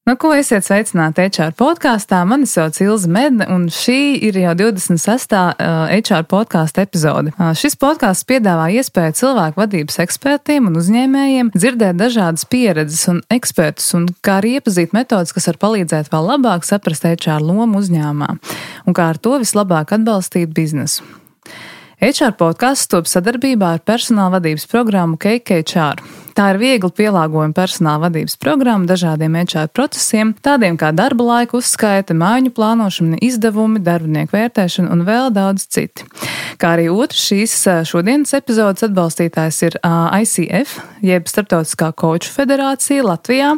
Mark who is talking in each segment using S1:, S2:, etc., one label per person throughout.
S1: Ko esiet sveicināti HR podkāstā. Mani sauc Ilze Medne, un šī ir jau 26. HR podkāsta epizode. Šis podkāsts piedāvā iespēju cilvēku vadības ekspertiem un uzņēmējiem dzirdēt dažādas pieredzes un ekspertus, un kā arī iepazīt metodas, kas var palīdzēt vēl labāk saprast HR lomu uzņēmumā, un kā ar to vislabāk atbalstīt biznesu. HR podkāsts top sadarbībā ar personāla vadības programmu CakeHR. Tā ir viegli pielāgojama personāla vadības programma dažādiem HR procesiem, tādiem kā darba laika uzskaite, mājiņu plānošana, izdevumi, darbinieku vērtēšana un vēl daudz citi. Kā arī otrs šīs šodienas epizodes atbalstītājs ir ICF, jeb Startautiskā Coachu federācija Latvijā,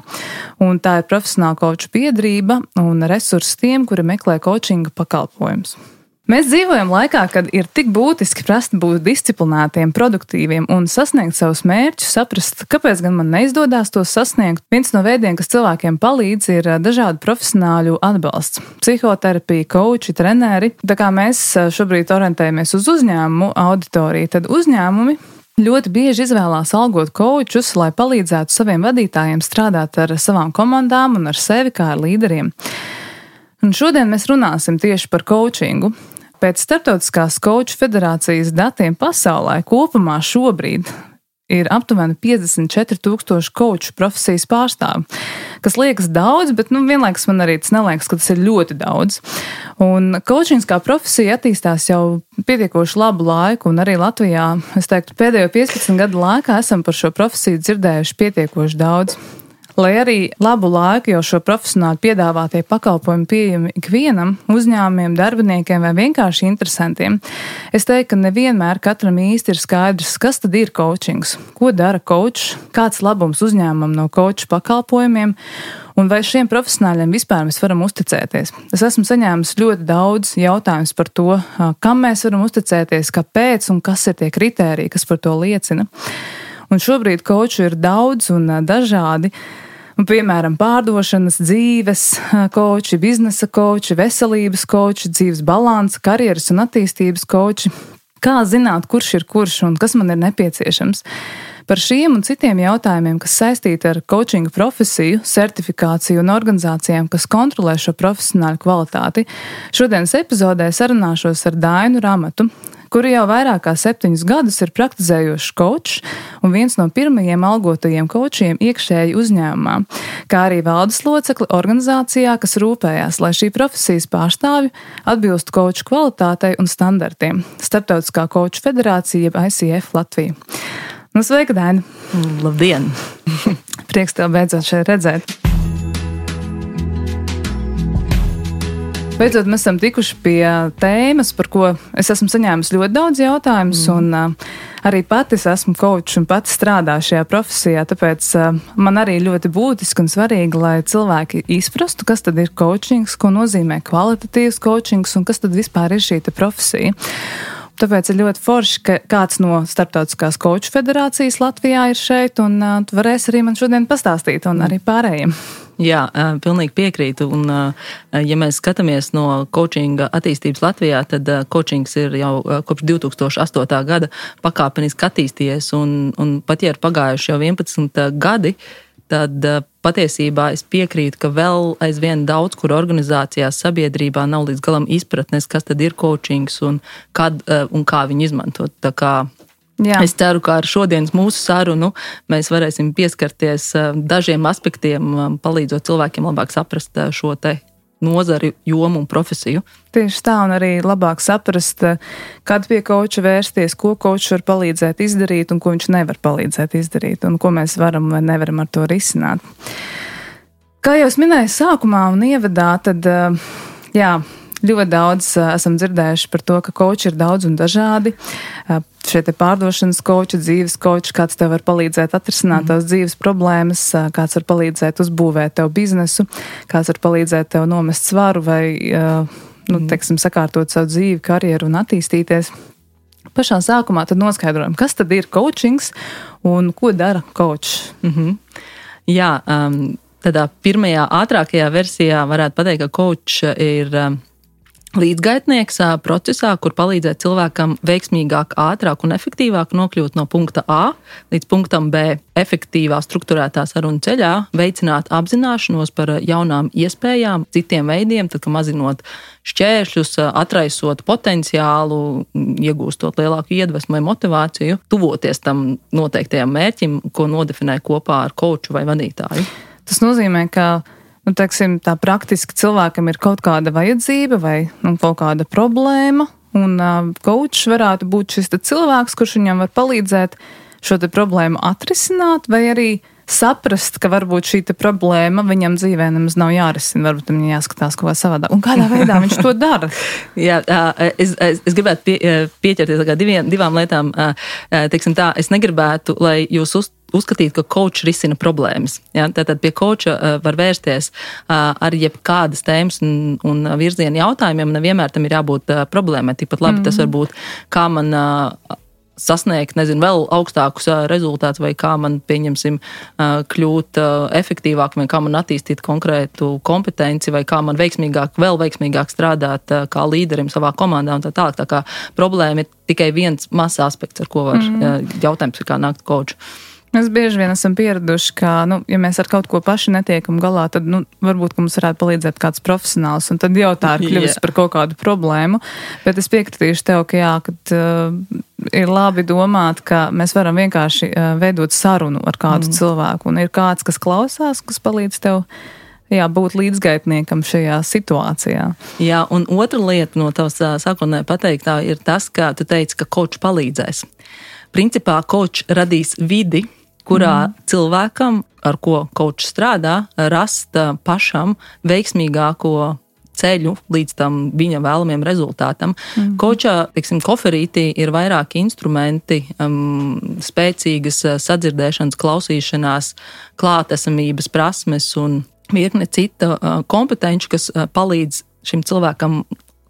S1: un tā ir profesionāla coachu biedrība un resursi tiem, kuri meklē coachinga pakalpojumus. Mēs dzīvojam laikā, kad ir tik būtiski prast būt disciplinētiem, produktīviem un sasniegt savus mērķus, saprast, kāpēc gan man neizdodas tos sasniegt. Viens no veidiem, kas cilvēkiem palīdz, ir dažādu profesionāļu atbalsts. Psihoterapija, coachi, treneri. Tā kā mēs šobrīd orientējamies uz uzņēmumu auditoriju, tad uzņēmumi ļoti bieži izvēlās algot coachus, lai palīdzētu saviem vadītājiem strādāt ar savām komandām un ar sevi kā ar līderiem. Un šodien mēs runāsim tieši par coachingu. Pēc Startautiskās Coachu federācijas datiem pasaulē kopumā šobrīd ir aptuveni 54,000 coachu profesijas pārstāvi, kas liekas daudz, bet vienlaikus man arī tas neliekas, ka tas ir ļoti daudz. Un coachings kā profesija attīstās jau pietiekoši labu laiku, un arī Latvijā, es teiktu, pēdējo 15 gadu laikā esam par šo profesiju dzirdējuši pietiekoši daudz. Lai arī labu laiku jau šo profesionāļu piedāvātie pakalpojumi pieejami ikvienam, uzņēmumiem, darbiniekiem vai vienkārši interesantiem, es teiktu, ka nevienmēr katram īsti ir skaidrs, kas tad ir coachings, ko dara coach, kāds labums uzņēmumam no coachu pakalpojumiem, un vai šiem profesionāļiem vispār mēs varam uzticēties. Es esmu saņēmis ļoti daudz jautājumus par to, kam mēs varam uzticēties, kāpēc un kas ir tie kritēriji, kas par to liecina. Un šobrīd coachu ir daudz un dažādi. Un, piemēram, pārdošanas, dzīves coachi, biznesa coachi, veselības coachi, dzīves balansa, karjeras un attīstības coachi. Kā zināt, kurš ir kurš un kas man ir nepieciešams? Par šiem un citiem jautājumiem, kas saistīti ar coachinga profesiju, certifikāciju un organizācijām, kas kontrolē šo profesionāļu kvalitāti, šodienas epizodē sarunāšos ar Dainu Ramatu, kuri jau vairāk kā 7 gadus ir praktizējošs coachs un viens no pirmajiem algotajiem coachiem iekšēji uzņēmumā, kā arī valdes locekli organizācijā, kas rūpējās, lai šī profesijas pārstāvji atbilstu coachu kvalitātei un standartiem. Startautiskā Coachu federācija, jeb ICF Latvija. Sveika, Daina!
S2: Labdien!
S1: Prieks tev beidzot šeit redzēt. Beidzot, mēs esam tikuši pie tēmas, par ko es esmu saņēmis ļoti daudz jautājumus, un arī pati es esmu coach un pati strādāju šajā profesijā, tāpēc man arī ļoti būtiski un svarīgi, lai cilvēki izprastu, kas tad ir coachings, ko nozīmē kvalitatīvs coachings un kas tad vispār ir šī profesija. Tāpēc ir ļoti forši, ka kāds no Startautiskās Coachu federācijas Latvijā ir šeit, un tu varēsi arī man šodien pastāstīt, un arī pārējiem.
S2: Jā, pilnīgi piekrītu, un ja mēs skatāmies no coachinga attīstības Latvijā, tad coachings ir jau kopš 2008. gada pakāpeniski attīstījies, un pat ja ir pagājuši jau 11 gadi, tad patiesībā es piekrītu, ka vēl aizvien daudz, kur organizācijās sabiedrībā nav līdz galam izpratnes, kas tad ir coachings un kad un kā viņu izmantot. Tā kā es ceru, ka ar šodienas mūsu sarunu mēs varēsim pieskarties dažiem aspektiem, palīdzot cilvēkiem labāk saprast šo te nozari, jomu un profesiju.
S1: Tieši tā, un arī labāk saprast, kad pie coacha vērsties, ko coach var palīdzēt izdarīt un ko viņš nevar palīdzēt izdarīt, un ko mēs varam vai nevaram ar to risināt. Kā jau es minēju sākumā un ievadā, tad ļoti daudz esam dzirdējuši par to, ka coachi ir daudz un dažādi. Šie te pārdošanas coachi, dzīves coachi, kāds tev var palīdzēt atrisināt tavas dzīves problēmas, kāds var palīdzēt uzbūvēt tev biznesu, kāds var palīdzēt tev nomest svaru vai, sakārtot savu dzīvi, karjeru un attīstīties. Pašā sākumā tad noskaidrojam, kas tad ir coachings un ko dara coach.
S2: Jā, tādā pirmajā ātrākajā versijā varētu pateikt, ka coach ir līdzgaitnieks procesā, kur palīdzēt cilvēkam veiksmīgāk, ātrāk un efektīvāk nokļūt no punkta A līdz punktam B efektīvā, strukturētā sarunu ceļā, veicināt apzināšanos par jaunām iespējām, citiem veidiem, tad, ka mazinot šķēršļus, atraisot potenciālu, iegūstot lielāku iedvesmu vai motivāciju, tuvoties tam noteiktajam mērķim, ko nodefinē kopā ar kouču vai vadītāju.
S1: Tas nozīmē, ka teiksim, tā praktiski cilvēkam ir kaut kāda vajadzība vai kaut kāda problēma, un koučs varētu būt šis cilvēks, kurš viņam var palīdzēt šo te problēmu atrisināt, vai arī saprast, ka varbūt šī problēma viņam dzīvē nemaz nav jārisina, varbūt viņam jāskatās kaut kā savādāk. Un kādā veidā viņš to dara?
S2: Jā, es gribētu pieķerties divām lietām. Teiksim tā, es negribētu, lai jūs uzskatīt, ka koučs risina problēmas. Ja? Tātad pie kouča var vērsties ar jebkādas tēmas un virziena jautājumiem, nevienmēr tam ir jābūt problēmai. Tikpat labi tas var būt, kā man sasniegt, vēl augstākus rezultātus, vai kā man, pieņemsim, kļūt efektīvāk, vai kā man attīstīt konkrētu kompetenci, vai kā man vēl veiksmīgāk strādāt kā līderim savā komandā un tā tālāk. Tā kā problēma ir tikai viens mazs aspekts, ar ko var jautājums, kā nākt kouču.
S1: Mēs bieži vien esam pieraduši, ka, ja mēs ar kaut ko paši netiekam galā, tad, varbūt, ka mums varētu palīdzēt kāds profesionāls, un tad jau tā ir kļuvusi par kaut kādu problēmu. Bet es piekritīšu tev, ka jā, kad ir labi domāt, ka mēs varam vienkārši veidot sarunu ar kādu cilvēku, un ir kāds, kas klausās, kas palīdz tev būt līdzgaitniekam šajā situācijā. Jā,
S2: un otra lieta no tavas sākotnēji pateiktā ir tas, ka tu teici, ka koučs palīdzēs. Principā koučs radīs vidi, kurā cilvēkam, ar ko koučs strādā, rast pašam veiksmīgāko ceļu līdz tam viņa vēlamiem rezultātam. Koučā, koferītī ir vairāki instrumenti, spēcīgas sadzirdēšanas, klausīšanās, klātesamības prasmes un virkne cita kompetenci, kas palīdz šim cilvēkam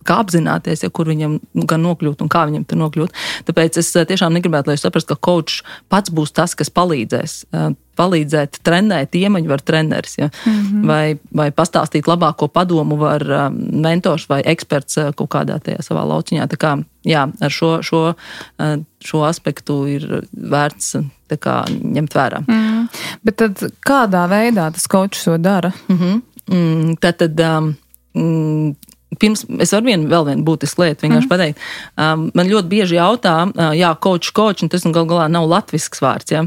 S2: kā apzināties, kur viņam gan nokļūt un kā viņam tur nokļūt. Tāpēc es tiešām negribētu, lai jūs saprast, ka koučs pats būs tas, kas palīdzēt trenēt iemaņu var treneris, ja? Vai pastāstīt labāko padomu var mentors vai eksperts kaut kādā tajā savā lauciņā. Tā kā, jā, ar šo aspektu ir vērts tā kā ņemt vērā.
S1: Bet tad kādā veidā tas koučs to dara?
S2: Tātad pirms es varu vēl vienu būtisku lietu vienkārši pateikt. Man ļoti bieži jautā, koučs, un tas gal galā nav latvisks vārds. Ja?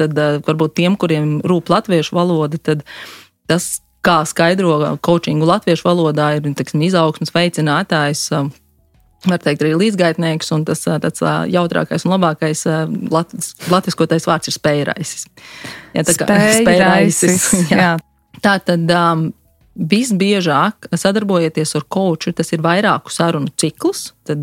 S2: Tad varbūt tiem, kuriem rūp latviešu valoda, tad tas, kā skaidro koučingu latviešu valodā, ir izaugsmes veicinātājs, var teikt arī līdzgaitnieks, un tas tāds jautrākais un labākais latviskotais vārds ir spējraisis. Ja,
S1: spējraisis. Jā.
S2: Tātad visbiežāk sadarbojieties ar kouču, tas ir vairāku sarunu ciklus, tad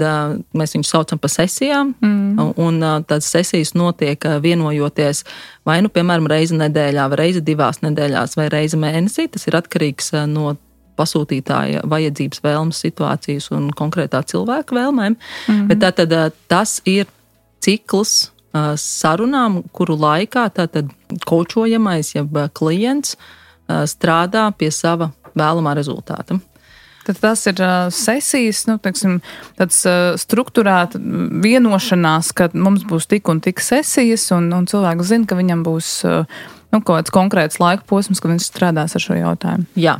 S2: mēs viņus saucam pa sesijām, un tādas sesijas notiek vienojoties vai piemēram, reizi nedēļā, vai reizi 2 nedēļās, vai reizi mēnesī. Tas ir atkarīgs no pasūtītāja vajadzības, vēlmes, situācijas un konkrētā cilvēka vēlmēm. Bet tātad tas ir cikls sarunām, kuru laikā tātad koučojamais, jeb klients strādā pie sava vēlamā rezultāta.
S1: Tad tas ir sesijas, tāds strukturēta vienošanās, ka mums būs tik un tik sesijas, un cilvēks zina, ka viņam būs kaut kāds konkrēts laika posms, ka viņš strādās ar šo jautājumu.
S2: Jā,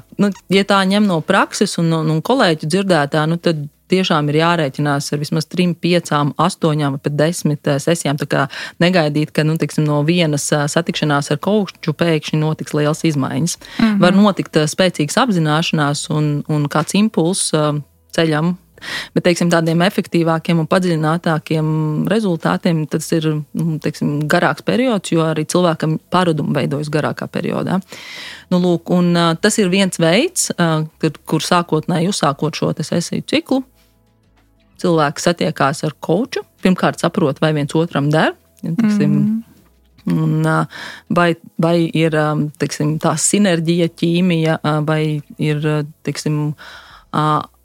S2: ja tā ņem no prakses un kolēģu dzirdētā, tad tiešām ir jārēķinās ar vismaz 3, 5, 8 vai pat 10 sesijām. Tā kā negaidīt, ka no vienas satikšanās ar kouču pēkšņi notiks liels izmaiņas. Var notikt spēcīgas apzināšanās un kāds impulss ceļam. Bet, tādiem efektīvākiem un padziļinātākiem rezultātiem tas ir, garāks periods, jo arī cilvēkam paradumi veidojas garākā periodā. Lūk, un tas ir viens veids, kur sākotnēji uzsākot šo sesiju ciklu, cilvēks satiekās ar kouču, pirmkārt saprot, vai viens otram der, un vai ir, tā sinerģija, ķīmija, vai ir,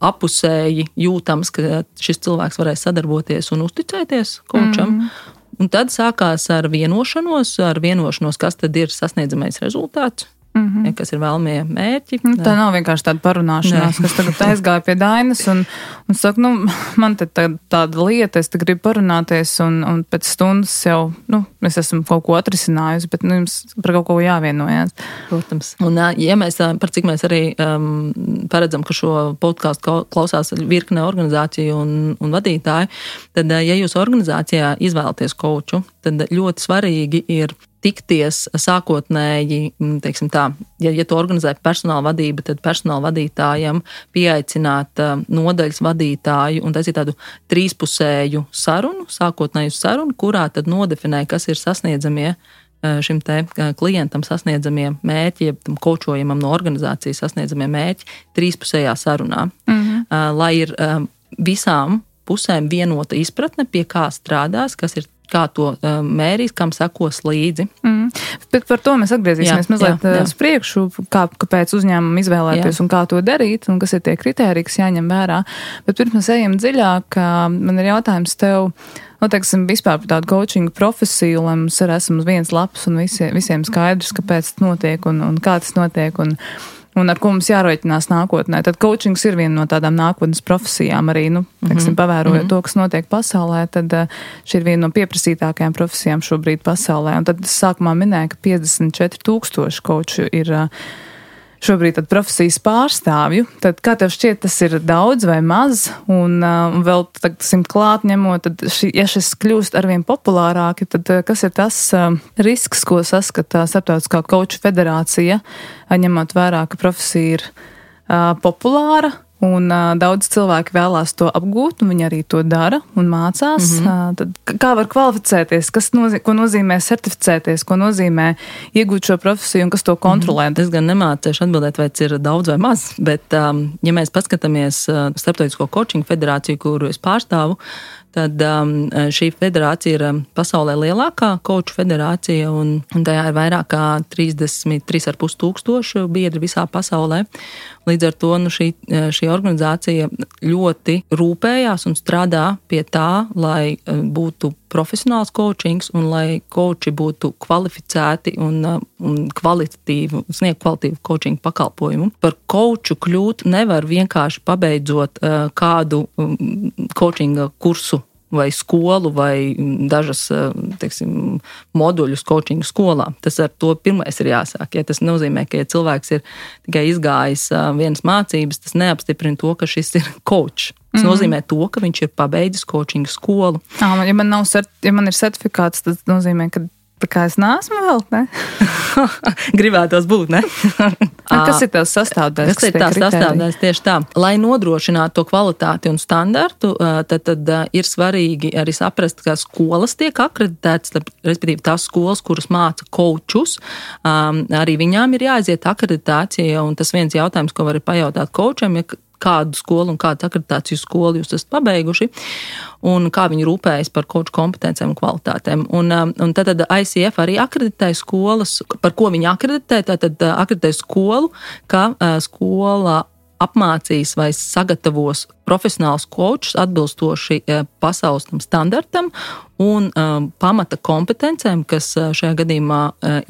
S2: apusēji jūtams, ka šis cilvēks varēs sadarboties un uzticēties koučam. Un tad sākās ar vienošanos, kas tad ir sasniedzamais rezultāts. ja, kas ir vēlamie mērķi.
S1: Tā nav vienkārši tāda parunāšanās, kas tagad aizgāja pie Dainas un saka, man te tāda lieta, es te gribu parunāties un pēc stundas jau, es esmu kaut ko atrisinājusi, bet jums par kaut ko jāvienojās.
S2: Protams. Un, ja mēs, par cik mēs arī paredzam, ka šo podcastu klausās virkne organizāciju un vadītāju, tad, ja jūs organizācijā izvēlaties kouču, tad ļoti svarīgi ir tikties sākotnēji, teiksim tā, ja tu organizē personāla vadība, tad personāla vadītājam pieaicināt nodaļas vadītāju un taisīt tādu trīspusēju sarunu, sākotnēju sarunu, kurā tad nodefinē, kas ir sasniedzamie šim te klientam sasniedzamie mērķi, ja tam kočojamam no organizācijas sasniedzamie mērķi trīspusējā sarunā, lai ir visām pusēm vienota izpratne, pie kā strādās, kas ir kā to mērīs, kam sekos līdzi.
S1: Bet par to mēs atgriezīsimies mazliet uz priekšu, kāpēc uzņēmumu izvēlēties un kā to darīt, un kas ir tie kritēriji, kas jāņem vērā. Bet pirms mēs ejam dziļāk, man ir jautājums tev, teiksim, vispār par tādu coachingu profesiju, lai mums arī esam uz vienas lapas un visiem skaidrs, kāpēc tas notiek un kā tas notiek un ar ko mums jārēķinās nākotnē. Tad coachings ir viena no tādām nākotnes profesijām arī, teiksim, pavērojot to, kas notiek pasaulē, tad šī ir viena no pieprasītākajām profesijām šobrīd pasaulē. Un tad es sākumā minēju, ka 54,000 coachu ir šobrīd tad profesijas pārstāvju. Tad kā tev šķiet, tas ir daudz vai maz? Un vēl simt klāt ņemot, tad ja šis kļūst arvien populārāki, tad kas ir tas risks, ko saskata Starptautiskā coachu federācija, ņemot vērā, ka profesija ir populāra? Un daudz cilvēki vēlās to apgūt, un viņi arī to dara un mācās. Tad kā var kvalificēties, ko nozīmē certificēties, ko nozīmē iegūt šo profesiju un kas to kontrolē?
S2: Es gan nemācēšu atbildēt, vai tas ir daudz vai maz, bet ja mēs paskatāmies Starptautisko coaching federāciju, kuru es pārstāvu, tad šī federācija ir pasaulē lielākā coachu federācija, un tajā ir vairāk kā 33,5 tūkstoši biedri visā pasaulē. Līdz ar to šī organizācija ļoti rūpējās un strādā pie tā, lai būtu profesionāls coachings un lai coachi būtu kvalificēti un sniegt kvalitīvu coaching pakalpojumu. Par coachu kļūt nevar vienkārši pabeidzot kādu coachinga kursu vai skolu vai dažas, teiksim, moduļus coachinga skolā. Tas ar to pirmais ir jāsāk. Ja tas nozīmē, ka ja cilvēks ir tikai izgājis vienas mācības, tas neapstiprina to, ka šis ir coach. Tas nozīmē to, ka viņš ir pabeidzis coachinga skolu.
S1: Ja man ir certifikāts, tas nozīmē, ka tā kā es neesmu vēl, ne?
S2: Gribētos būt, ne?
S1: Kas ir tās sastāvdaļas?
S2: Kas ir tās sastāvdaļas tieši tā? Lai nodrošinātu to kvalitāti un standartu, tad ir svarīgi arī saprast, ka skolas tiek akreditētas, respektīvi tās skolas, kuras māca coachus, arī viņām ir jāaiziet akreditācija, un tas viens jautājums, ko var pajautāt coacham, ja kādu skolu un kādu akreditāciju skolu jūs esat pabeiguši un kā viņi rūpējas par coachu kompetencēm un kvalitātēm. Un tad ICF arī akreditē skolas, par ko viņi akreditē, tad akreditē skolu, ka skola apmācīs vai sagatavos profesionāls coachs atbilstoši pasaules standartam un pamata kompetencēm, kas šajā gadījumā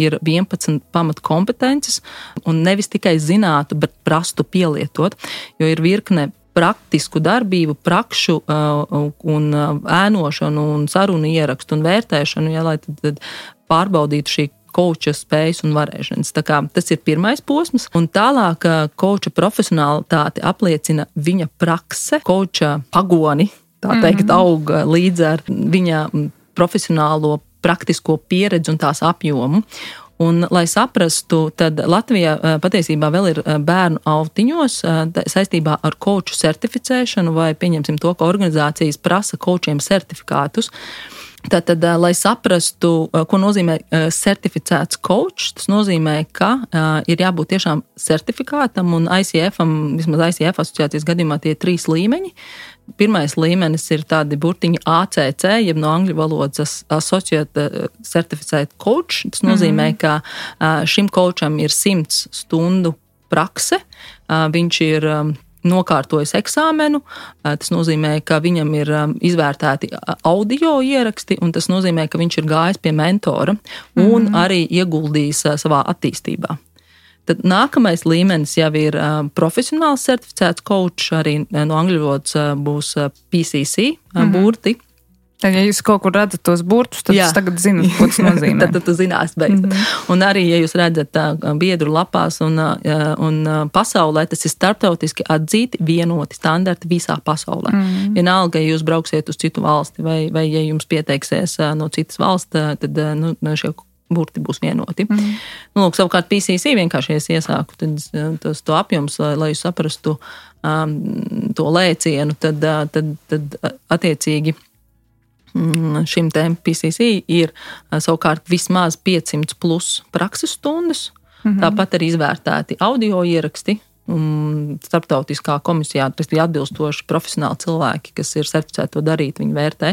S2: ir 11 pamata kompetences, un nevis tikai zinātu, bet prastu pielietot, jo ir virkne praktisku darbību, prakšu un ēnošanu un sarunu ierakstu un vērtēšanu, ja, lai tad pārbaudītu šī coacha spējas un varēšanas. Tā kā tas ir pirmais posms, un tālāk coacha profesionalitāti apliecina viņa prakse, coacha pagoni, tā teikt, aug līdz ar viņa profesionālo praktisko pieredzi un tās apjomu. Un, lai saprastu, tad Latvijā patiesībā vēl ir bērnu autiņos saistībā ar coachu certificēšanu vai pieņemsim to, ka organizācijas prasa coachiem certifikātus. Tātad, lai saprastu, ko nozīmē certificēts coach, tas nozīmē, ka ir jābūt tiešām certifikātam un ICF-am, vismaz ICF asociācijas gadījumā tie 3 līmeņi. Pirmais līmenis ir tādi burtiņi ACC, jeb no angļu valodas Associate Certificate Coach. Tas nozīmē, ka šim coacham ir 100 stundu prakse, viņš ir nokārtojis eksāmenu, tas nozīmē, ka viņam ir izvērtēti audio ieraksti, un tas nozīmē, ka viņš ir gājis pie mentora un arī ieguldījis savā attīstībā. Tad nākamais līmenis jau ir profesionāls certificēts coach, arī no angļu valodas būs PCC burti.
S1: Tad, ja jūs kaut kur redzat tos burtus, tad jūs tagad zināt, ko tas nozīmē.
S2: Tad tu zinās, bet. Un arī, ja jūs redzat biedru lapās un pasaulē, tas ir starptautiski atzīti vienoti standarti visā pasaulē. Vienalga, ja jūs brauksiet uz citu valsti vai ja jums pieteiksies no citas valsts, tad šie burti būs vienoti. Lūk, savukārt PCC vienkārši iesāku, tad to apjoms, lai jūs saprastu to lēcienu, tad attiecīgi šim tēm PCC ir savukārt vismaz 500 plus prakses stundas, tāpat arī izvērtēti audio ieraksti, starptautiskā komisijā, tas ir atbilstoši profesionāli cilvēki, kas ir certificēti to darīt, viņi vērtē.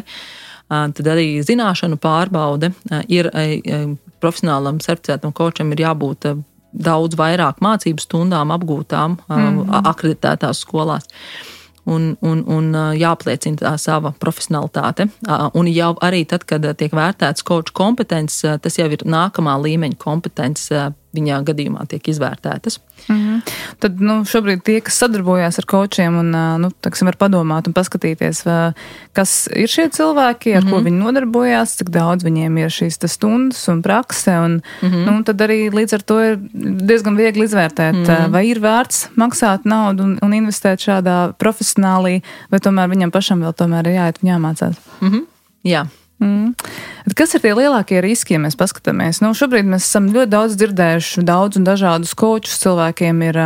S2: Tad arī zināšanu pārbaude ir profesionālam certificētam kočam ir jābūt daudz vairāk mācību stundām apgūtām akreditētās skolās. Un jāapliecina tā sava profesionalitāte. Un jau arī tad, kad tiek vērtēts koču kompetences, tas jau ir nākamā līmeņa kompetences, viņā gadījumā tiek izvērtētas.
S1: Tad šobrīd tie, kas sadarbojās ar kočiem un var padomāt un paskatīties, kas ir šie cilvēki, ar ko viņi nodarbojās, cik daudz viņiem ir šīs stundas un prakse, un tad arī līdz ar to ir diezgan viegli izvērtēt, vai ir vērts maksāt naudu un investēt šādā profesionālī, vai tomēr viņam pašam vēl tomēr ir jāiet un jāmācās.
S2: Jā.
S1: Kas ir tie lielākie riski, ja mēs paskatāmies? Šobrīd mēs esam ļoti daudz dzirdējuši daudz un dažādus kočus. Cilvēkiem ir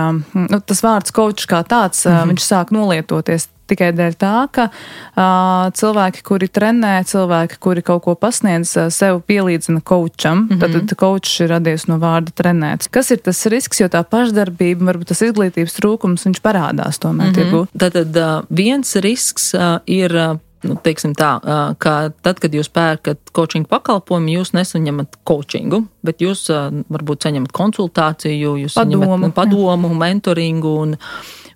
S1: tas vārds kočs kā tāds, viņš sāk nolietoties tikai dēļ tā, ka cilvēki, kuri trenē, cilvēki, kuri kaut ko pasniedz, sev pielīdzina kočam. Tad kočs ir radies no vārda trenēts. Kas ir tas risks, jo tā pašdarbība, varbūt tas izglītības trūkums, viņš parādās tomēr tirgū?
S2: Tad viens risks ir teiksim tā, ka tad, kad jūs pērkat coaching pakalpojumu, jūs nesaņemat coachingu, bet jūs varbūt saņemat konsultāciju, jūs saņemat padomu, mentoringu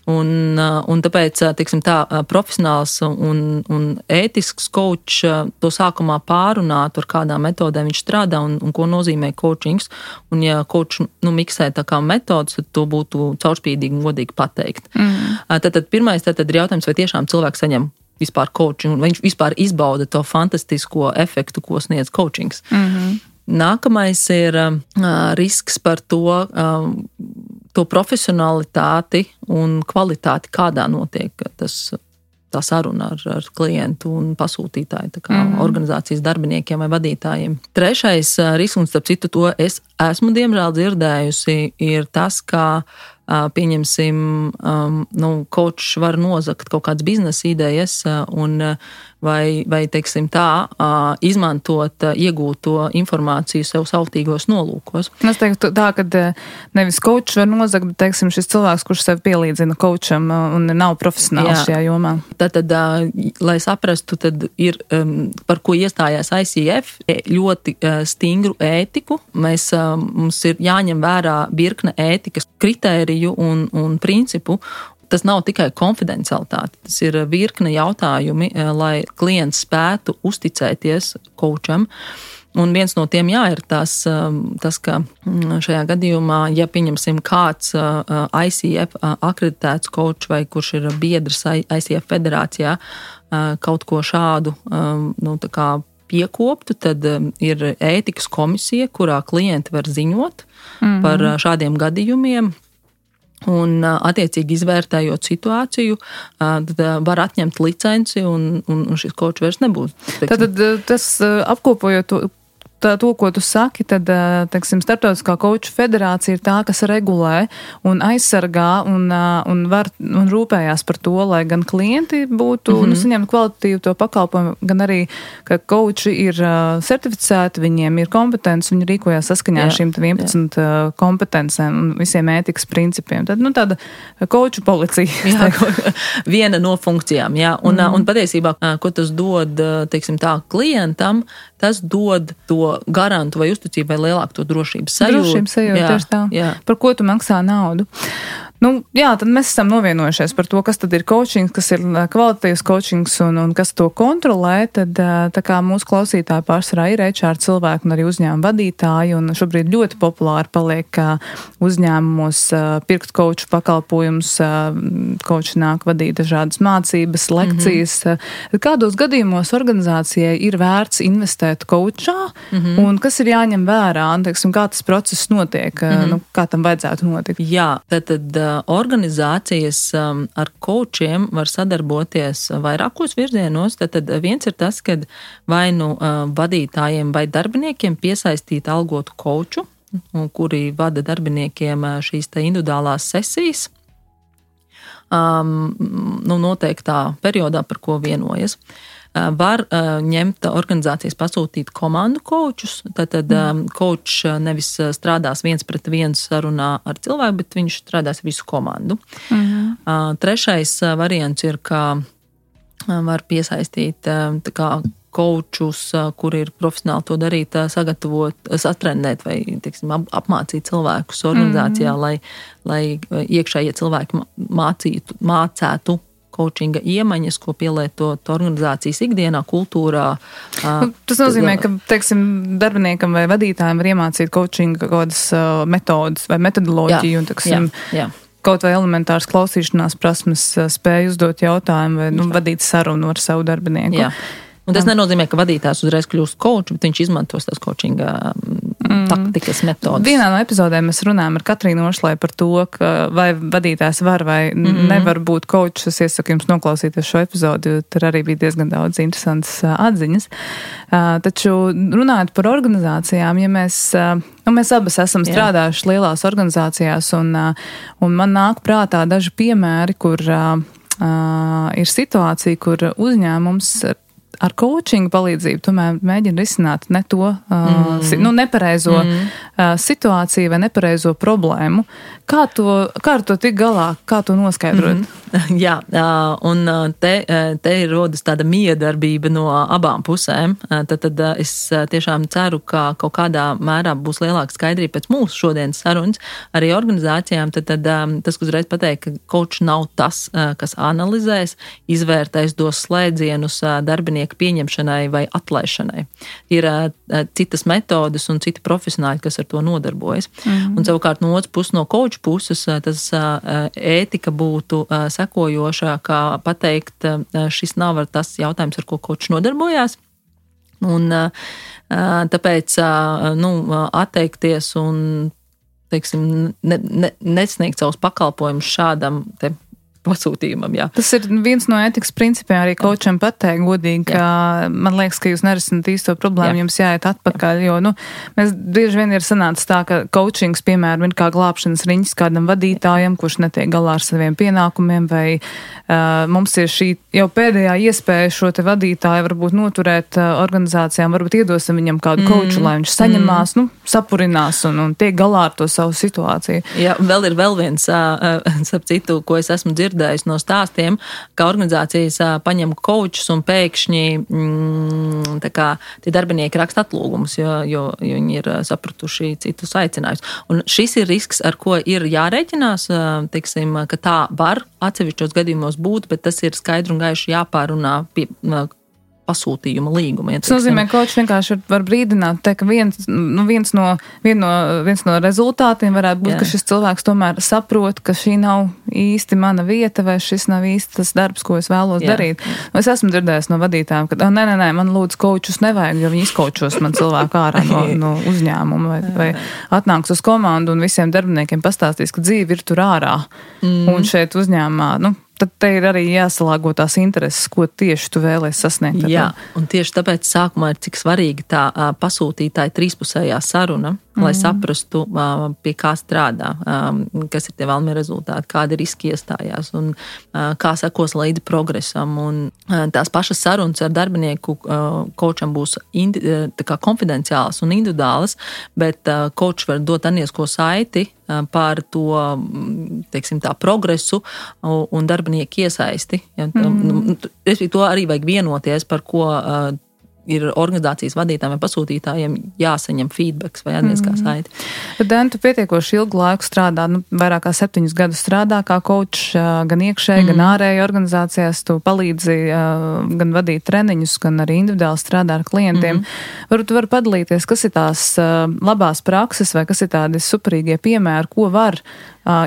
S2: un tāpēc, teiksim tā, profesionāls un ētisks coach to sākumā pārunāt, ar kādām metodēm viņš strādā un ko nozīmē coachings. Un ja coach miksē tā kā metodas, tad to būtu caurspīdīgi un godīgi pateikt. Tad pirmais ir jautājums, vai tiešām cilvēks saņem vispār coaching, un viņš vispār izbauda to fantastisko efektu, ko sniedz coachings. Nākamais ir risks par to profesionalitāti un kvalitāti, kādā notiek tā saruna ar klientu un pasūtītāju, tā kā organizācijas darbiniekiem vai vadītājiem. Trešais risks, un starp citu to es esmu diemžēl dzirdējusi, ir tas, ka pieņemsim, coach var nozagt kaut kādas biznesa idejas vai teiksim tā, izmantot iegūto informāciju sev sautīgos nolūkos.
S1: Es teiktu tā, ka nevis coach var nozagt, bet teiksim šis cilvēks, kurš sev pielīdzina coacham un nav profesionāls šajā jomā.
S2: Tad, lai saprastu, tad ir, par ko iestājās ICF, ļoti stingru ētiku. Mums ir jāņem vērā virkne ētikas kritēriju un principu. Tas nav tikai konfidencialitāte, tas ir virkne jautājumi, lai klients spētu uzticēties coacham. Un viens no tiem ir tas, ka šajā gadījumā, ja pieņemsim kāds ICF akreditēts coach vai kurš ir biedrs ICF federācijā, kaut ko šādu tā kā piekoptu, tad ir ētikas komisija, kurā klienti var ziņot par šādiem gadījumiem. Un attiecīgi izvērtējot situāciju, tad var atņemt licenci un šis coach vairs nebūs.
S1: Tad tas apkopojot to, ko tu saki, tad, teiksim, Starptautiskā coachu federācija ir tā, kas regulē un aizsargā un rūpējās par to, lai gan klienti būtu saņemt kvalitatīvu to pakalpojumu, gan arī, ka coachi ir certificēti, viņiem ir kompetences, viņi rīkojās saskaņā ar šīm 11 kompetencēm un visiem ētikas principiem. Tad, tāda coachu policija.
S2: Viena no funkcijām, jā. Un patiesībā, ko tas dod, teiksim tā, klientam, tas dod to garantu vai uzticību vai lielāku to drošības sajūtu.
S1: Drošības sajūtu, tieši tā. Jā. Par ko tu maksā naudu? Jā, tad mēs esam novienojušies par to, kas tad ir coaching, kas ir kvalitatīvs coachings un kas to kontrolē. Tad tā kā mūsu klausītāji pārsvarā ir HR cilvēki un arī uzņēmuma vadītāji, un šobrīd ļoti populāri paliek uzņēmumos pirkt coachu pakalpojumus, coachi nāk vadīt dažādas mācības, lekcijas. Kādos gadījumos organizācijai ir vērts investēt coachā, un kas ir jāņem vērā, un, teiksim, kā tas process notiek, kā tam vajadzētu notikt?
S2: Jā, tad organizācijas ar coachiem var sadarboties vairākos virzienos. Tad viens ir tas, kad vai vadītājiem vai darbiniekiem piesaistīt algotu coachu, kuri vada darbiniekiem šīs te individuālās sesijas, noteiktā periodā, par ko vienojas. Var ņemt organizācijas pasūtīt komandu coachus, tad coach nevis strādās 1-pret-1 sarunā ar cilvēku, bet viņš strādās visu komandu. Trešais variants ir, ka var piesaistīt tā kā coachus, kuri ir profesionāli to darīt, sagatavot, satrenēt vai, teiksim, apmācīt cilvēkus organizācijā, lai iekšējie cilvēki mācētu coachinga iemaņas, ko pielietot organizācijas ikdienā, kultūrā.
S1: Tas nozīmē, ka, teiksim, darbiniekam vai vadītājiem var iemācīt coachinga kādas metodas vai metodoloģiju un, teiksim, kaut vai elementāras klausīšanās prasmes, spēju uzdot jautājumu vai vadīt sarunu ar savu darbinieku.
S2: Jā. Un tas nenozīmē, ka vadītājs uzreiz kļūst coach, bet viņš izmantos tās coachinga taktikas metodas.
S1: Vienā no epizodēm mēs runājam ar Katrīnu Ošlai par to, ka vai vadītājs var vai nevar būt coach. Es iesaku jums noklausīties šo epizodu, jo tur arī bija diezgan daudz interesantas atziņas. Taču runājot par organizācijām, ja mēs abas esam strādājuši lielās organizācijās, un man nāk prātā daži piemēri, kur ir situācija, kur uzņēmums ar coachingu palīdzību tomēr mēģina risināt ne to nepareizo situāciju vai nepareizo problēmu. Kā ar to tik galā? Kā to noskaidrot?
S2: Jā, un te ir rodas tāda miedarbība no abām pusēm. Tad es tiešām ceru, ka kaut kādā mērā būs lielāka skaidrība pēc mūsu šodienas sarunas arī organizācijām. Tad tas, ko uzreiz pateikt, ka coach nav tas, kas analizēs, izvērtēs, dos slēdzienus darbinieku pieņemšanai vai atlaišanai. Ir citas metodas un citi profesionāļi, kas ar to nodarbojas. Un savukārt no otras puses, no coach puses, tas ētika būtu sekojošā, kā pateikt, šis nav tas jautājums, ar ko coach nodarbojās. Un tāpēc atteikties un, teiksim, nesniegt savus pakalpojumus šādam te pasūtījumam, jā.
S1: Tas ir viens no ētikas principiem arī coacham pateikt godīgi, ka man liekas, ka jūs nerisināt īsto problēmu, jums jāiet atpakaļ, jo, mēs bieži vien ir sanācis tā, ka coachings, piemēram, ir kā glābšanas riņķis kādam vadītājam, kurš netiek galā ar saviem pienākumiem, vai mums ir šī jau pēdējā iespēja šo te vadītāju varbūt noturēt organizācijām, varbūt iedosim viņam kādu coachu, lai viņš saņemās, sapurinās un tiek galā ar to savu situāciju.
S2: Jā, vēl ir viens, starp citu, ko es esmu dzirdējis no stāstiem, ka organizācijas paņem coachus un pēkšņi tā kā tie darbinieki raksta atlūgumus, jo viņi ir sapratuši citus aicinājumus. Un šis ir risks, ar ko ir jārēķinās, teiksim, ka tā var atsevišķos gadījumos būt, bet tas ir skaidri un gaiši jāpārunā pie pasūtījuma līguma.
S1: Tas nozīmē, ka coach vienkārši var brīdināt, ka viens no rezultātiem varētu būt, ka šis cilvēks tomēr saprot, ka šī nav īsti mana vieta vai šis nav īsti tas darbs, ko es vēlos darīt. Es esmu dzirdējis no vadītājiem, ka nē, man lūdzu coachus nevajag, jo viņi izkočos man cilvēku ārā no uzņēmuma vai atnāks uz komandu un visiem darbiniekiem pastāstīs, ka dzīve ir tur ārā un šeit uzņēmumā, tad te ir arī jāsalāgo tās intereses, ko tieši tu vēlies sasniegt.
S2: Jā, un tieši tāpēc sākumā ir cik svarīgi tā pasūtītāja trīspusējā saruna, lai saprastu, pie kā strādā, kas ir tie vēlamie rezultāti, kādi riski iestājās un kā sekos līdzi progresam. Un tās pašas sarunas ar darbinieku coacham būs tā kā konfidenciālas un individuālas, bet coach var dot aniesko saiti par to, teiksim, tā progresu un darbinieku iesaisti. Ja, to arī vajag vienoties, par ko ir organizācijas vadītājiem vai pasūtītājiem jāsaņem feedbacks vai atgriezniskā saite.
S1: Dan, tu pietiekoši ilgu laiku strādā, vairāk kā 7 gadus strādā kā coach, gan iekšēji, gan ārēji organizācijās. Tu palīdzi gan vadīt treniņus, gan arī individuāli strādā ar klientiem. Varbūt tu vari padalīties, kas ir tās labās prakses vai kas ir tādi superīgie piemēri, ko var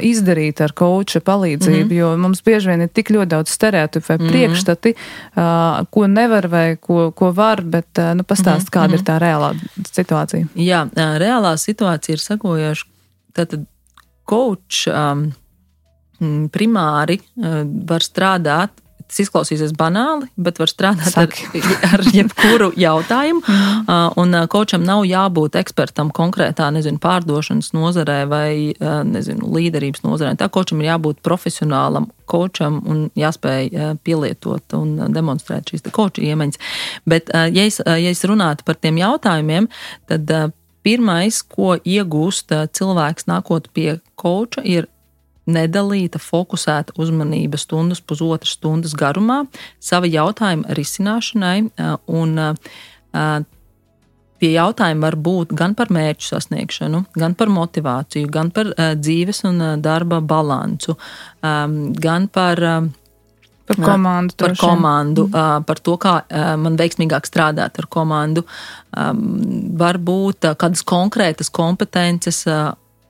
S1: izdarīt ar coacha palīdzību, jo mums bieži vien ir tik ļoti daudz stereotipu vai priekšstati, ko nevar vai ko var, bet pastāst, kāda ir tā reālā situācija.
S2: Jā, reālā situācija ir sekojoša. Tātad coach primāri var strādāt, tas izklausīsies banāli, bet var strādāt ar jebkuru jautājumu, un coacham nav jābūt ekspertam konkrētā, pārdošanas nozarē vai, līderības nozarē. Tā coacham ir jābūt profesionālam coacham un jāspēj pielietot un demonstrēt šīs coacha iemaņas. Bet, ja es runātu par tiem jautājumiem, tad pirmais, ko iegūst cilvēks nākot pie coacha, ir nedalīta, fokusēta uzmanība stundas, pusotras stundas garumā sava jautājuma risināšanai, un tie jautājumi var būt gan par mērķu sasniegšanu, gan par motivāciju, gan par dzīves un darba balansu, gan par komandu, par to, kā man veiksmīgāk strādāt ar komandu, varbūt kādas konkrētas kompetences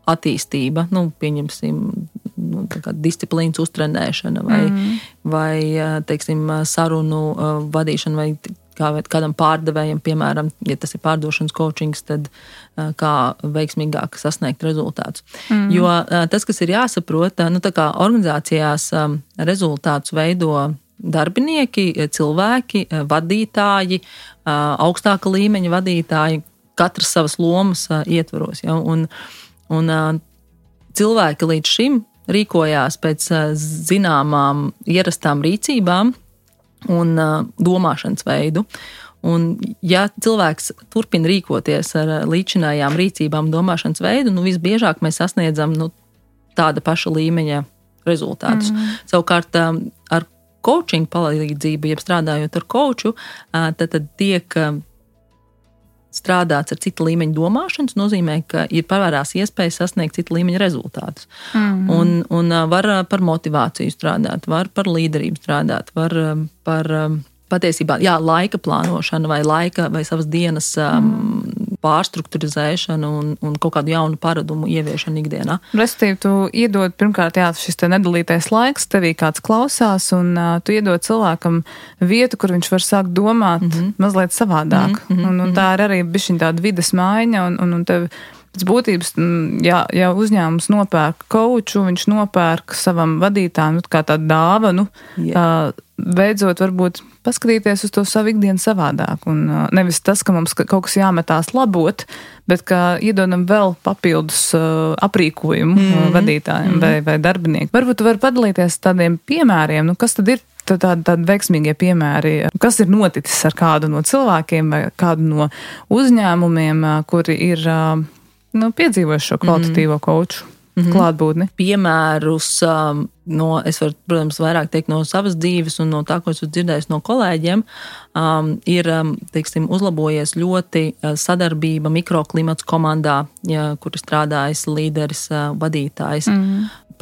S2: attīstība, pieņemsim, disciplīnas uztrenēšana vai teiksim, sarunu vadīšana vai kādam pārdevējam, piemēram, ja tas ir pārdošanas coachings, tad kā veiksmīgāk sasniegt rezultātus. Jo tas, kas ir jāsaprot, tā kā organizācijās rezultātus veido darbinieki, cilvēki, vadītāji, augstāka līmeņa vadītāji, katrs savas lomas ietvaros. Ja? Un cilvēki līdz šim rīkojās pēc zināmām ierastām rīcībām un domāšanas veidu. Un ja cilvēks turpina rīkoties ar līdzinājām rīcībām domāšanas veidu, visbiežāk mēs sasniedzam tāda paša līmeņa rezultātus. Savukārt ar coaching palīdzību, jeb strādājot ar coachu, tad tiek strādāts ar cita līmeņa domāšanas, nozīmē, ka ir pavērās iespēja sasniegt cita līmeņa rezultātus. Un var par motivāciju strādāt, var par līderību strādāt, var par patiesībā, laika plānošanu vai savas dienas pārstrukturizēšanu un kaut kādu jaunu paradumu ieviešanu ikdienā.
S1: Respektīvi, tu iedod pirmkārt, šis te nedalītais laiks, tevī kāds klausās, un tu iedod cilvēkam vietu, kur viņš var sākt domāt mazliet savādāk. Un tā ir arī bišķiņ tāda vides maiņa, un tev pēc būtības, ja uzņēmums nopērk coachu, viņš nopērk savam vadītājam kā tādu dāvanu, beidzot varbūt paskatīties uz to savu ikdienu savādāk. Un nevis tas, ka mums kaut kas jāmetās labot, bet ka iedodam vēl papildus aprīkojumu vadītājiem vai darbiniekiem. Varbūt tu vari padalīties tādiem piemēriem, kas tad ir tādi veiksmīgie piemēri, kas ir noticis ar kādu no cilvēkiem vai kādu no uzņēmumiem, kuri ir piedzīvojuši šo kvalitatīvo coachu klātbūtni.
S2: Piemērus es varu, protams, vairāk teikt no savas dzīves un no tā, ko esmu dzirdējis no kolēģiem, ir, teiksim, uzlabojies ļoti sadarbība mikroklimats komandā, kur ir strādājis līderis, vadītājs,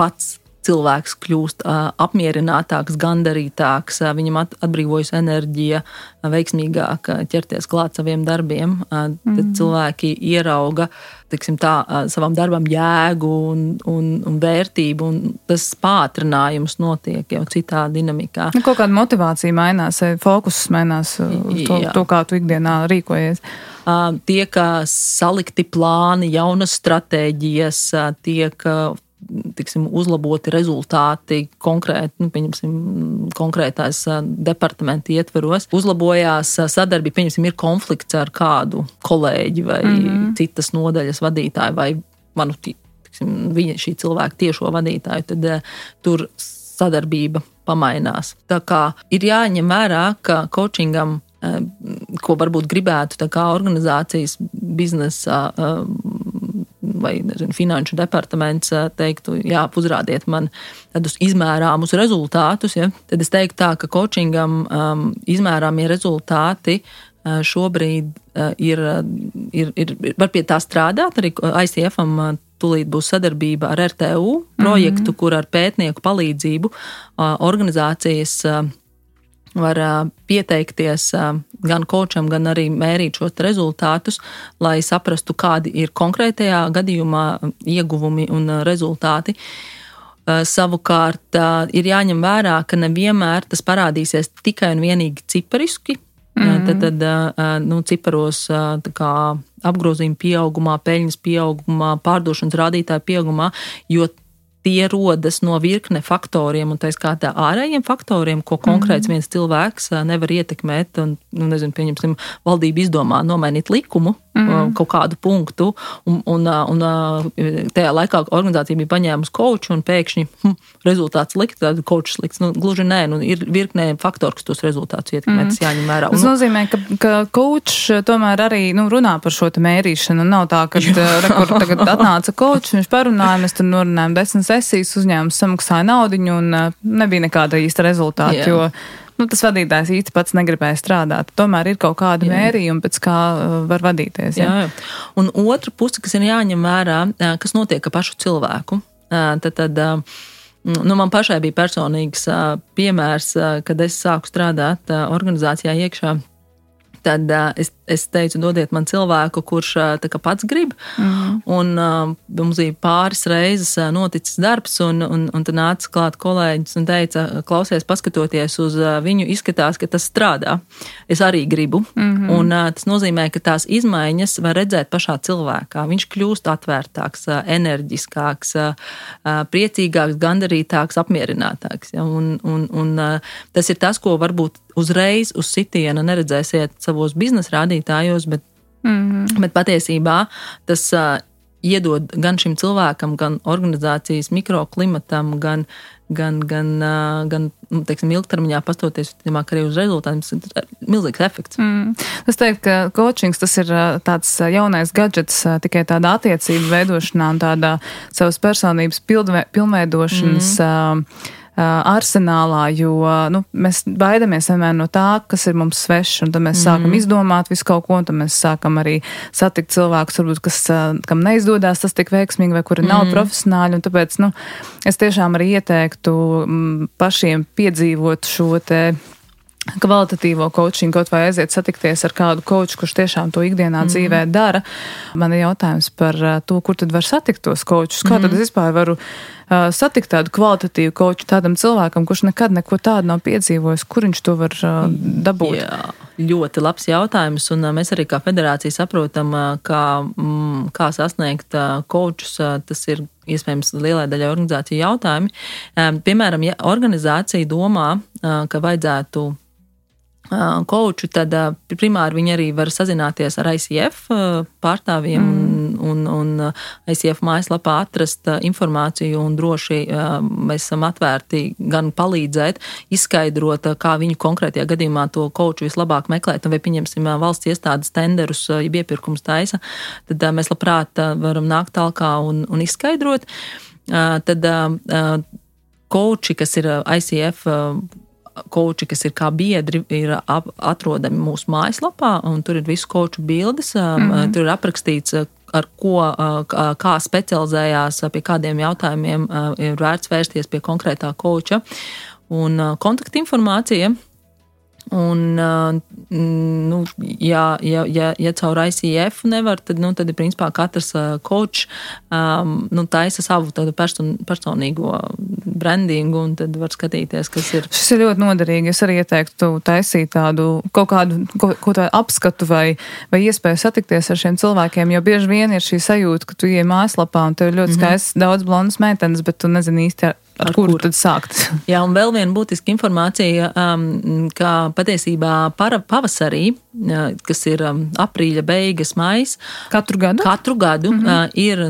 S2: pats cilvēks kļūst apmierinātāks, gandarītāks, viņam atbrīvojas enerģija, veiksmīgāk ķerties klāt saviem darbiem. Tad cilvēki ierauga, savam darbam jēgu un vērtību, un tas pātrinājums notiek jau citā dinamikā.
S1: Kaut kāda motivācija mainās, fokus mainās to, kā tu ikdienā rīkojies.
S2: Tiek salikti plāni, jaunas stratēģijas, tiek uzlaboti rezultāti konkrēti, konkrētās departamenta ietveros. Uzlabojās sadarbība, ir konflikts ar kādu kolēģi vai citas nodaļas vadītāju vai šī cilvēka tiešo vadītāju, tad tur sadarbība pamainās. Tā kā ir jāņem vērā, ka coachingam, ko varbūt gribētu tā kā organizācijas biznesa vai finanšu departaments teiktu, uzrādiet man tādus izmērāmus rezultātus, tad es teiktu tā, ka coachingam izmērāmie rezultāti šobrīd var pie tā strādāt. Arī ICF-am tūlīt būs sadarbība ar RTU projektu, kur ar pētnieku palīdzību organizācijas var pieteikties gan kočam, gan arī mērīt šos rezultātus, lai saprastu, kādi ir konkrētajā gadījumā ieguvumi un rezultāti. Savukārt ir jāņem vērā, ka nevienmēr tas parādīsies tikai un vienīgi cipariski. Tad ciparos kā apgrozījuma pieaugumā, peļņas pieaugumā, pārdošanas rādītāju pieaugumā, jo tie rodas no virkne faktoriem, un tā skaitā ārējiem faktoriem, ko konkrēts viens cilvēks nevar ietekmēt. Un, pieņemsim, valdība izdomā nomainīt likumu, kaut kādu punktu, un tajā laikā organizācija bija paņēmusi koču, un pēkšņi rezultāts slikts, tad kočs slikts. Gluži nē, ir virknē faktori, kas tos rezultātus ietekmē, tas jāņem vērā.
S1: Tas nozīmē, ka kočs tomēr arī runā par šo te mērīšanu. Nav tā, ka kur tagad atnāca kočs, viņš parunāja, mēs tur norunājam 10 sesijas, uzņēmums samaksāja naudiņu, un nebija nekāda īsta rezultāta, jo tas vadītājs īsti pats negribēja strādāt. Tomēr ir kaut kāda mērījuma, pēc kā var vadīties. Jā.
S2: Un otra puse, kas ir jāņem vērā, kas notiek ar pašu cilvēku. Tad man pašai bija personīgs piemērs, kad es sāku strādāt organizācijā iekšā. Tad es teicu, dodiet man cilvēku, kurš tā kā pats grib. Un mums bija pāris reizes noticis darbs, un tad nāca klāt kolēģis un teica, klausies, paskatoties uz viņu, izskatās, ka tas strādā. Es arī gribu. Un tas nozīmē, ka tās izmaiņas var redzēt pašā cilvēkā. Viņš kļūst atvērtāks, enerģiskāks, priecīgāks, gandarītāks, apmierinātāks. Ja? Un tas ir tas, ko varbūt uzreiz uz sitiena neredzēsiet savos biznesa rādītājos, bet patiesībā tas iedod gan šim cilvēkam, gan organizācijas mikroklimatam, gan teiksim, ilgtermiņā pastoties arī uz rezultātiem, tas ir milzīgs efekts.
S1: Es teiktu, ka coachings tas ir tāds jaunais gadžets tikai tādā attiecību veidošanā un tādā savas personības pilnveidošanas arsenālā, jo mēs baidamies vienmēr no tā, kas ir mums svešs, un tad mēs sākam izdomāt visu kaut ko, un tad mēs sākam arī satikt cilvēkus, varbūt, kam neizdodas tas tik veiksmīgi, vai kuri nav profesionāļi, un tāpēc, es tiešām arī ieteiktu pašiem piedzīvot šo te kvalitatīvo coachingu, kaut vai aiziet satikties ar kādu coachu, kurš tiešām to ikdienā dzīvē dara. Man ir jautājums par to, kur tad var satikt tos coachus. Kā tad es vispār varu satikt tādu kvalitatīvu coachu tādam cilvēkam, kurš nekad neko tādu nav piedzīvojis? Kur viņš to var dabūt?
S2: Jā, ļoti labs jautājums, un mēs arī kā federācija saprotam, kā sasniegt coachus. Tas ir iespējams lielai daļai organizāciju jautājumi. Piemēram, ja organizācija domā, ka vajadzētu coachu, tad primāri viņi arī var sazināties ar ICF pārstāvjiem un ICF mājaslapā atrast informāciju, un droši mēs esam atvērti gan palīdzēt, izskaidrot, kā viņu konkrētajā gadījumā to coachu vislabāk meklēt, vai pieņemsim valsts iestādes tenderus, ja iepirkums taisa, tad mēs labprāt varam nākt talkā un izskaidrot. Tad coachi, kas ir ICF coachi, kas ir kā biedri, ir atrodami mūsu mājaslapā, un tur ir visu coachu bildes, tur ir aprakstīts, ar ko, kā specializējās, pie kādiem jautājumiem ir vērts vērsties pie konkrētā coacha, un kontaktinformācija. Un, ja caur ICF nevar, tad ir principā katrs coach taisa savu tādu personīgo brandingu, un tad var skatīties, kas ir.
S1: Šis ir ļoti noderīgi. Es arī ieteiktu taisīt tādu kaut kādu apskatu vai iespēju satikties ar šiem cilvēkiem, jo bieži vien ir šī sajūta, ka tu ieej mājaslapā un tev ir ļoti skaists daudz blondas meitenes, bet tu nezini īsti ar kuru tad sākt.
S2: Jā, un vēl viena būtiska informācija, ka patiesībā pavasarī, kas ir aprīļa beigas, maijs,
S1: katru
S2: gadu ir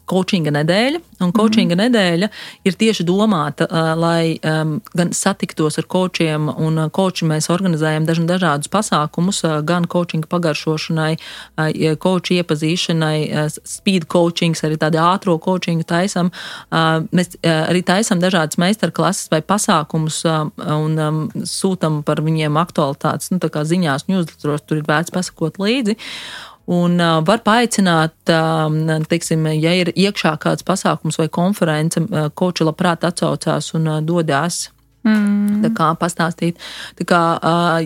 S2: coachinga nedēļa, un coachinga nedēļa ir tieši domāta, lai gan satiktos ar coachiem, un coachi mēs organizējam dažādus pasākumus, gan coachinga pagaršošanai, coachi iepazīšanai, speed coachings, arī tādi ātro coachingu taisam. Mēs arī taisam dažādas meistarklases vai pasākumus un sūtam par viņiem aktualitātes, tā kā ziņās, newsletteros kuros tur ir vērts pasakot līdzi. Un var paaicināt, teiksim, ja ir iekšā kāds pasākums vai konference, koči labprāt atsaucās un dodās. Tā kā pastāstīt. Tā kā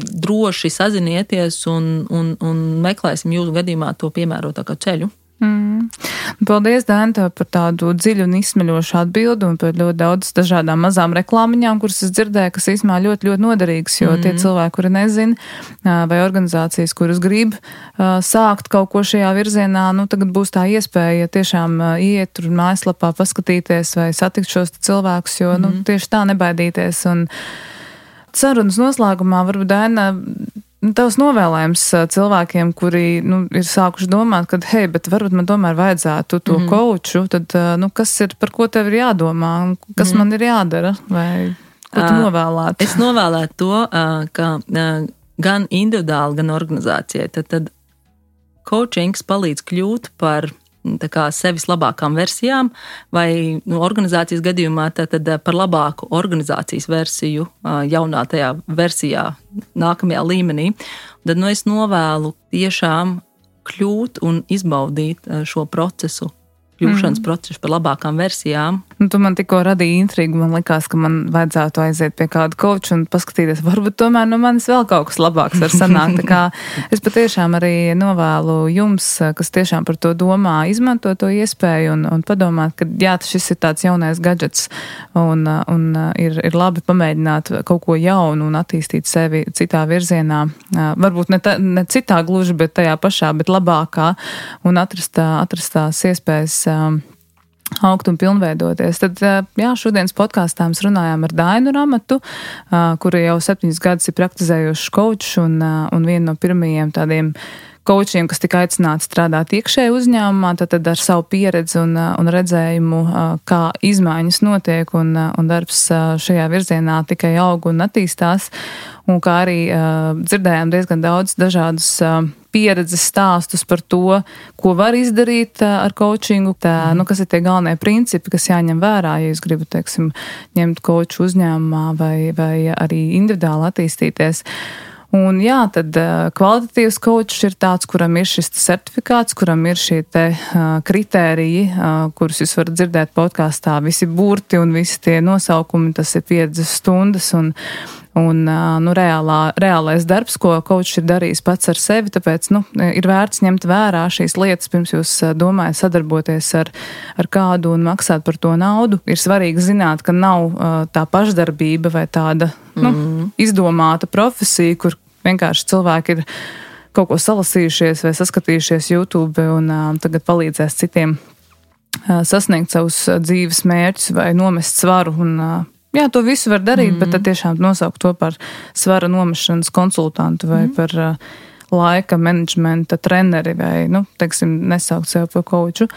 S2: droši sazinieties un meklēsim jūsu gadījumā to piemērotāko ceļu.
S1: Paldies, Daina, par tādu dziļu un izsmeļošu atbildi un par ļoti daudz dažādām mazām reklāmiņām, kuras es dzirdēju, kas īstenībā ļoti, ļoti noderīgas, jo tie cilvēki, kuri nezina, vai organizācijas, kuras grib sākt kaut ko šajā virzienā, tagad būs tā iespēja tiešām iet tur mājaslapā, paskatīties vai satikt šos cilvēkus, jo tieši tā nebaidīties. Un sarunas noslēgumā varbūt, Daina, tavs novēlējums cilvēkiem, kuri ir sākuši domāt, ka, hei, bet varbūt man tomēr vajadzētu to kouču, tad kas ir, par ko tev ir jādomā, kas man ir jādara, vai ko tu novēlētu?
S2: Es novēlētu to, ka gan individuāli, gan organizācijai, tad coachings palīdz kļūt par tā kā sevis labākām versijām, vai organizācijas gadījumā tad par labāku organizācijas versiju jaunā tajā versijā nākamajā līmenī. Tad es novēlu tiešām kļūt un izbaudīt šo procesu, kļūšanas procesu par labākām versijām.
S1: Tu man tikko radīja intrigu, man likās, ka man vajadzētu aiziet pie kāda koča un paskatīties, varbūt tomēr no manis vēl kaut kas labāks var sanākt. Tā kā es patiešām arī novēlu jums, kas tiešām par to domā, izmanto to iespēju un padomāt, ka jā, šis ir tāds jaunais gadžets un ir labi pamēģināt kaut ko jaunu un attīstīt sevi citā virzienā. Varbūt ne citā gluži, bet tajā pašā, bet labākā un atrast tās iespējas augt un pilnveidoties. Tad, jā, šodienas podkāstā mēs runājām ar Dainu Ramatu, kura jau 7 gadus ir praktizējuši kočs un viena no pirmajiem tādiem kočiem, kas tika aicināti strādāt iekšēji uzņēmumā, tad ar savu pieredzi un redzējumu, kā izmaiņas notiek un darbs šajā virzienā tikai aug un attīstās, un kā arī dzirdējām diezgan daudz dažādus pieredzes stāstus par to, ko var izdarīt ar coachingu, kas ir tie galvenie principi, kas jāņem vērā, ja jūs gribat, teiksim, ņemt koču uzņēmumā vai arī individuāli attīstīties. Un jā, tad kvalitatīvs kočs ir tāds, kuram ir šis certifikāts, kuram ir šie te kritēriji, kurus jūs varat dzirdēt podkāstā, visi burti un visi tie nosaukumi, tas ir 50 stundas un reālais darbs, ko kočs ir darījis pats ar sevi, tāpēc, ir vērts ņemt vērā šīs lietas, pirms jūs domājat sadarboties ar kādu un maksāt par to naudu. Ir svarīgi zināt, ka nav tā pašdarbība vai tāda, izdomāta profesija, kur vienkārši cilvēki ir kaut ko salasījušies vai saskatījušies YouTube un tagad palīdzēs citiem sasniegt savus dzīves mērķus vai nomest svaru un jā, to visu var darīt, bet tad tiešām nosaukt to par svara nomešanas konsultantu vai par laika menedžmenta treneri vai, teiksim, nesaukt sev par koču.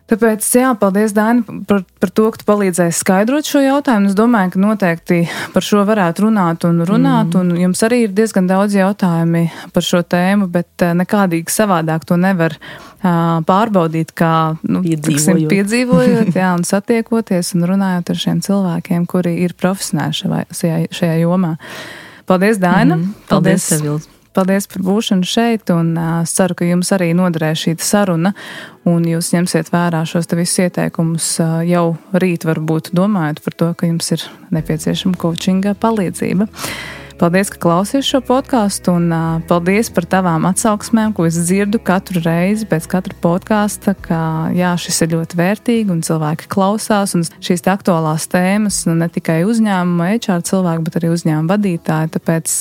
S1: Tāpēc, jā, paldies, Daina, par to, ka tu palīdzēji skaidrot šo jautājumu. Es domāju, ka noteikti par šo varētu runāt, un jums arī ir diezgan daudz jautājumi par šo tēmu, bet nekādīgi savādāk to nevar pārbaudīt, kā piedzīvojot, jā, un satiekoties un runājot ar šiem cilvēkiem, kuri ir profesionāli šajā jomā. Paldies, Daina!
S2: Paldies, Sevils!
S1: Paldies par būšanu šeit, un ceru, ka jums arī noderēs šī saruna, un jūs ņemsiet vērā šos te visus ieteikumus jau rīt, varbūt domājot par to, ka jums ir nepieciešama coachinga palīdzība. Paldies, ka klausies šo podkāstu, un paldies par tavām atsauksmēm, ko es dzirdu katru reizi pēc katra podkāsta, ka jā, šis ir ļoti vērtīgi un cilvēki klausās, un šīs aktuālās tēmas ne tikai uzņēmuma HR cilvēki, bet arī uzņēmuma vadītāji. Tāpēc,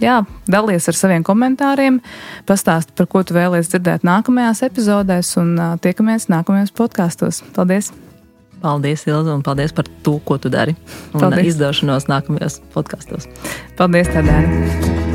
S1: jā, dalies ar saviem komentāriem, pastāsti, par ko tu vēlies dzirdēt nākamajās epizodēs, un tiekamies nākamajos podkāstos. Paldies!
S2: Paldies, Ilze, un paldies par to, ko tu dari. Un izdošanos nākamajos podkastos.
S1: Paldies, Tadēna!